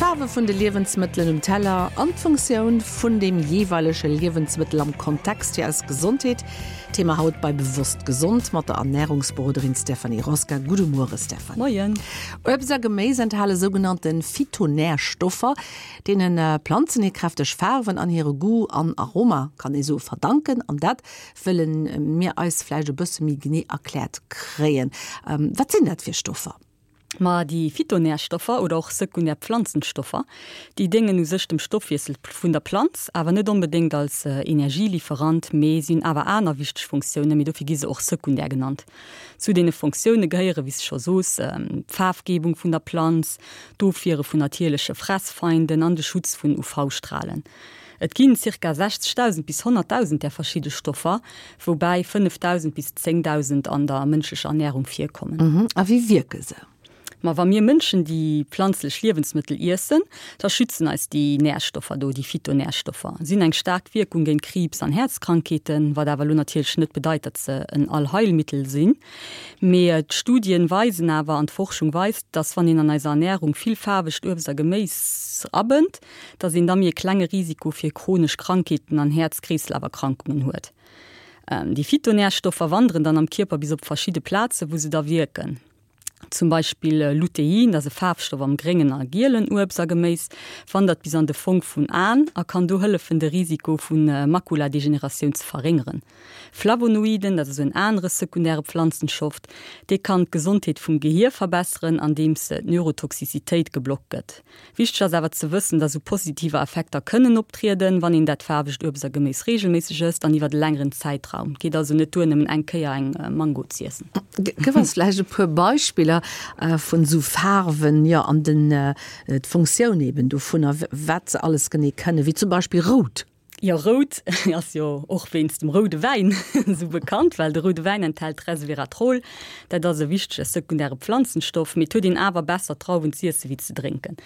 D'Faarwe vun de Liewensmëttelen um Teller an d'Funktioun vun deem jeeweilege Liewensmëttel am Kontext fir eis Gesondheet. Thema haut bei Bewosst Gesond mat der Ernärungsberoderin Stéphanie Rosca. Gudde Muere Stéphanie. Moien. Uebst a Geméis enthale sougenannte Phytonärstoffer, deene Planzen hir kräfteg Faarwen an hire Goût an Aroma, kann ee soe, verdanken. An dat wëlle mir eis vläicht e bësse méi genee erkläert kréien. Wat sinn dat fir Stoffer? Ma déi Phytonärstoffer oder och sekundär Pflanzenstoffer, déi déngen u sech dem Stoffwiessel vun der Planz, awer net onbedéngt als Energielieferant, mee si hunn awer aner wichteg Funktiounen, mee dofir gi se och sekundär genannt. Zu deene Funktioune gehéiere wéi s de scho soos, d'Faarfgebung vun der Planz, d'Ofwiere vun natierleche Fressfeinden an de Schutz vun UV-Stralen. Et ginn zirka 60.000 bis 100.000 där verschidde Stoffer, woubäi 5.000 bis 10.000 an der mënschlecher Ernärung virkommen. A wéi wierke se? Ma wa mir Mënschen déi planzlech Liewensmëttel iessen, da schützen eis déi Närstoffer do, déi Phytonärstoffer. Si hunn eng staark Wierkung géint Kriibs an Häerzkrankheeten, wat awer elo natierlech net bedeit, datt se en Allheilmittel sinn. Mee d'Studien weisen awer an d'Forschung weist, datt wann een an eiser Ernärung vill faarwegt Uebst a Geméis abënnt, dass een da méi e klenge Risiko fir chronesch Krankheeten an Häerz-Kreeslaferkrankungen huet. Déi Phytonärstoffer wanderen dann am Kierper bis op verschidde Plaze wou se da wierken. Zum Beispill Lutein, dat ass e Faarfstoff am gréngen a gielen Uebst a Geméis, wandert bis an de Fong vun Aen a kann do hëllefen de Risiko vu Makuladegeneratioun ze verréngeren. Flavonoiden, dat ass en anere sekundäre Pflanzenschoft, dee kann d'Gesondheet vum Gehier verbesseren andeems d'Neurotoxicitéit geblockt gëtt. Wichteg ass awer ze wëssen, dass esou positiver Effekter kënnen optrieden, wann een dat faarwegt Uebst a Geméis reegelméisseg ësst an iwwert e längeren Zäitraum. Et geet also net duer, nëmmen eng Kéier eng Mango z'iessen. Gëff eis vläicht e puer Beispiller vun esou Faarwen, jo, an den, d'Funktioun eben dovunner, wat se alles genee kënnen, wéi zum Beispill rout. Jo, rout ass jo och wéinst dem roude Wäin esou bekannt, well de roude Wäin enthält Resveratrol. Dat ass e wichtege sekundäre Pflanzenstoff, mee et huet een awer besser Drauwen z'iesse wéi ze drénken.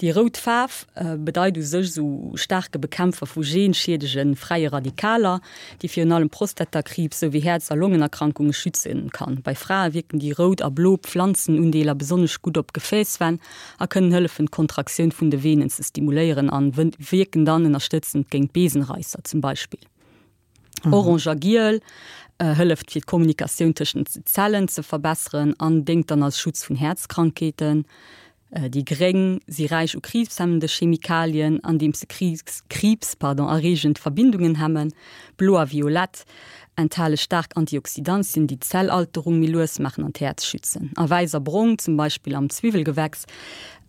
Déi rout Faarf bedeit u sech esou staarke Bekämpfer vu genschiedege fräie Radikaler, déi virun allem Prostatakriibs souwéi Häerz a Longenerkrankunge schütze kann. Bei Frae wierken déi rout a blo Pflanzenundeeler besonnesch gutt op Gefäässwänn a kënnen hëllefen d'Kontraktioun vun de Venen ze stimuléieren an wierken dann ënnerstëtzend géint Besenreisser zum Beispill. Orange a Giel hëlleft fir d'Kommunikatioun tëschent den Zellen ze verbesseren an déngt dann als Schutz vun Häerzkrankheeten. Déi Gréng si räich u kriibshemmende Chemikalien, andeems se Kriibs, pardon, erreegend Verbindungen hemmen. Blo a Violett enthale staark Antioxidantien, déi d'Zellalterung méi lues maachen an d'Häerz schützen. A Wäiss a Brong, zum Beispill am Zwiwwelgewächs,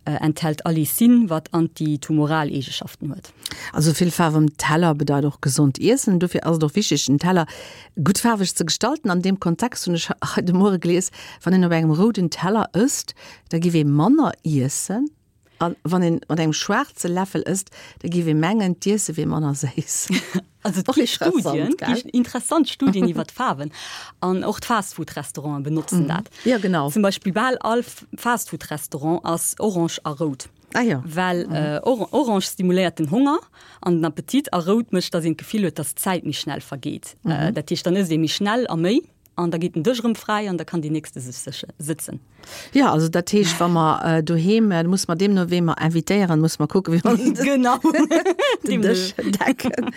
enthält Allicin, wat antitumoral Eegeschaften huet. Also vill Faarf um Teller bedeit och gesond iessen. Dofir ass et och wichteg, den Teller gutt faarweg ze gestalten. An deem Kontext hunn ech hei de Muere gelies, wann een op engem rouden Teller ësst, da giff ee manner iessen. A wann een mat engem schwaarze Läffel ësst, da géif ee mengen, d'Iesse wier manner séiss. Also et gi Studien, gi interessant Studien iwwer d'Faarwen. An och d'Fastfood-Restauranten benotzen dat. Ja, genau. Zum Beispill bal all Fastfood-Restaurant ass orange a rout. Ah ja. Well orange stimuléiert den Honger an den Appetit a rout mécht, datt een d'Gefill huet, datt d'Zäit méi schnell vergeet. Dat heescht, dann ësst ee méi schnell a méi. An da geet den Dësch erëm fräi an da kann déi nächste sech sëtzen. Jo, also dat heescht, wa mer doheem, da musse mer deemno wee mer invitéieren, musse mer kucken, wéi mer Genau. den Dësch decken.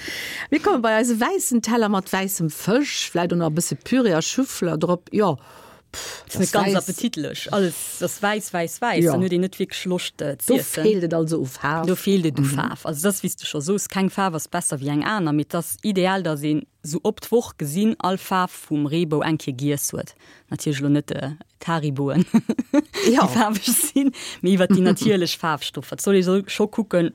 Mir komme bei eise wäissen Teller mat wäissem Fësch, vläicht och nach e bësse Püree a Schüffler drop. Jo, pff, dat ass net ganz appetitlech. Alles ass wäiss, wäiss, wäiss. Dann huet een net wierklech Loscht z'iessen. Do feelt et also u Faarf. Do feelt et u Faarf. Also et ass, wéi s de scho soos, keng Faarf ass besser wéi eng aner, mee et ass ideal, datt een sou op d'Woch gesinn all Faarf vum Reebou eng Kéier giess huet. Natierlech elo net d'Hariboen, déi faarweg sinn, mee iwwer déi natierlech Faarfstoffer. Et soll ee soll scho kucken,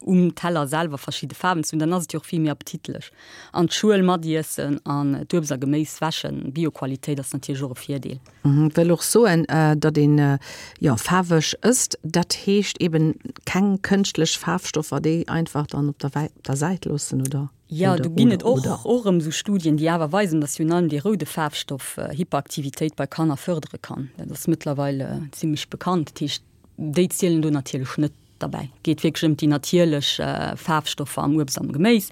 um Teller selwer verschidde Faarwen ze hunn, dann ass et jo och vill méi appetitlech. An d'Schuel matiessen an d'Uebst a Geméis wäschen, Bioqualitéit ass natierlech och e Virdeel. Wëll och soen, datt een, jo, faarweg ësst, dat heescht eben keng kënschtlech Faarfstoffer, déi einfach dann op der Säit loossen, oder? Jo, do ginn et och och erëm esou Studien, déi awer weisen, datt virun allem dee roude Faarfstoff Hyperaktivitéit bei Kanner fërdere kann. Dat ass mëttlerweil zimmlech bekannt. Dat heescht, déi zielen do natierlech net derbäi. Et geet wierklech ëm déi natierlech Faarfstoffer am Uebst am Geméis.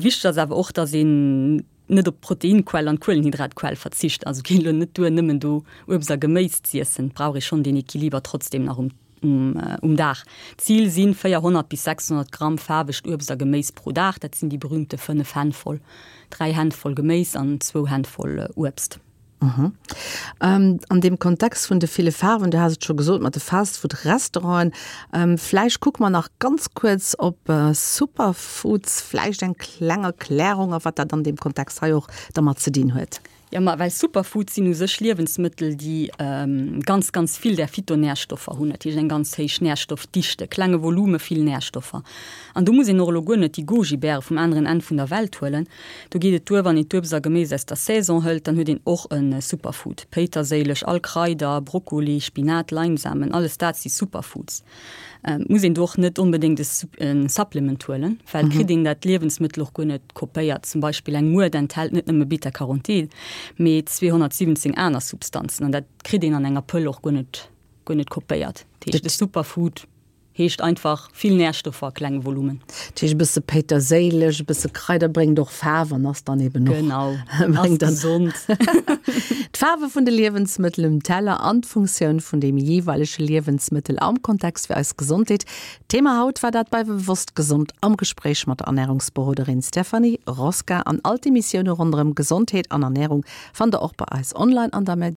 Wichteg ass awer och, datt een net op d'Proteinquell an d'Kuelenhydratquell verzicht. Also et geet elo net duer, nëmmen do Uebst a Geméis z'iessen. Et brauch ee schonn deen Equiliber trotzdem nach um. um Dag. D'Zil si 400 bis 600 Gramm faarwegt Uebst a Geméis pro Dag, dat sinn déi berüümte 5 Hänn voll, 3 Hänn voll Geméis an zwou Hänn voll Uebst. An deem Kontext vun de ville Faarwen, du has et scho gesot mat de Fastfood-Restauranten, vläicht kucke mer nach ganz kuerz op Superfoods, vläicht eng kleng Erklärung a wat dat an deem Kontext hei och dermat ze dinn huet. Jo, ma well Superfoods sinn u sech Liewensmëttel, déi ganz, ganz vill där Phytonärstoffer hunn, dat heescht eng ganz héich Närstoffdichte, klenge Volume, vill Närstoffer. An do muss een och elo guer net déi Goji-Bäre vum aneren Enn vun der Welt huelen. Do geet et duer, wann een d'Uebst a Geméis aus der Saison hëlt, dann huet een och e Superfood. Péiterséileg, all Kraider, Brokkoli, Spinat, Leinsamen, alles dat si Superfoods. Et muss een do och net onbedéngt e Supplement huelen, well et kritt een dat Liewensmëttel och guer net kopéiert. Zum Beispill eng Muert enthält net nëmme Beta-Carotin, mee 217 aner Substanzen an dat kritt een an enger Pëll och guer net, guer net kopéiert. Dat heescht, e Superfood heescht einfach vill Närstoffer a klengem Volumen. Dat heescht e bësse Péiterséileg, e bësse Kraider bréngt och Faarf an ass dann eben och. Genau, ass gesond. D'Faarwe vun de Liewensmëttel um Teller an d'Funktioun vun deem jeeweilege Liewensmëttel am Kontext fir eis Gesondheet. Thema haut war dat bei Bewosst Gesond am Gespréich mat der Ernärungsberoderin Stéphanie Rosca. An all d'Emissioune ronderëm Gesondheet an Ernärung fannt der och bei eis online an der.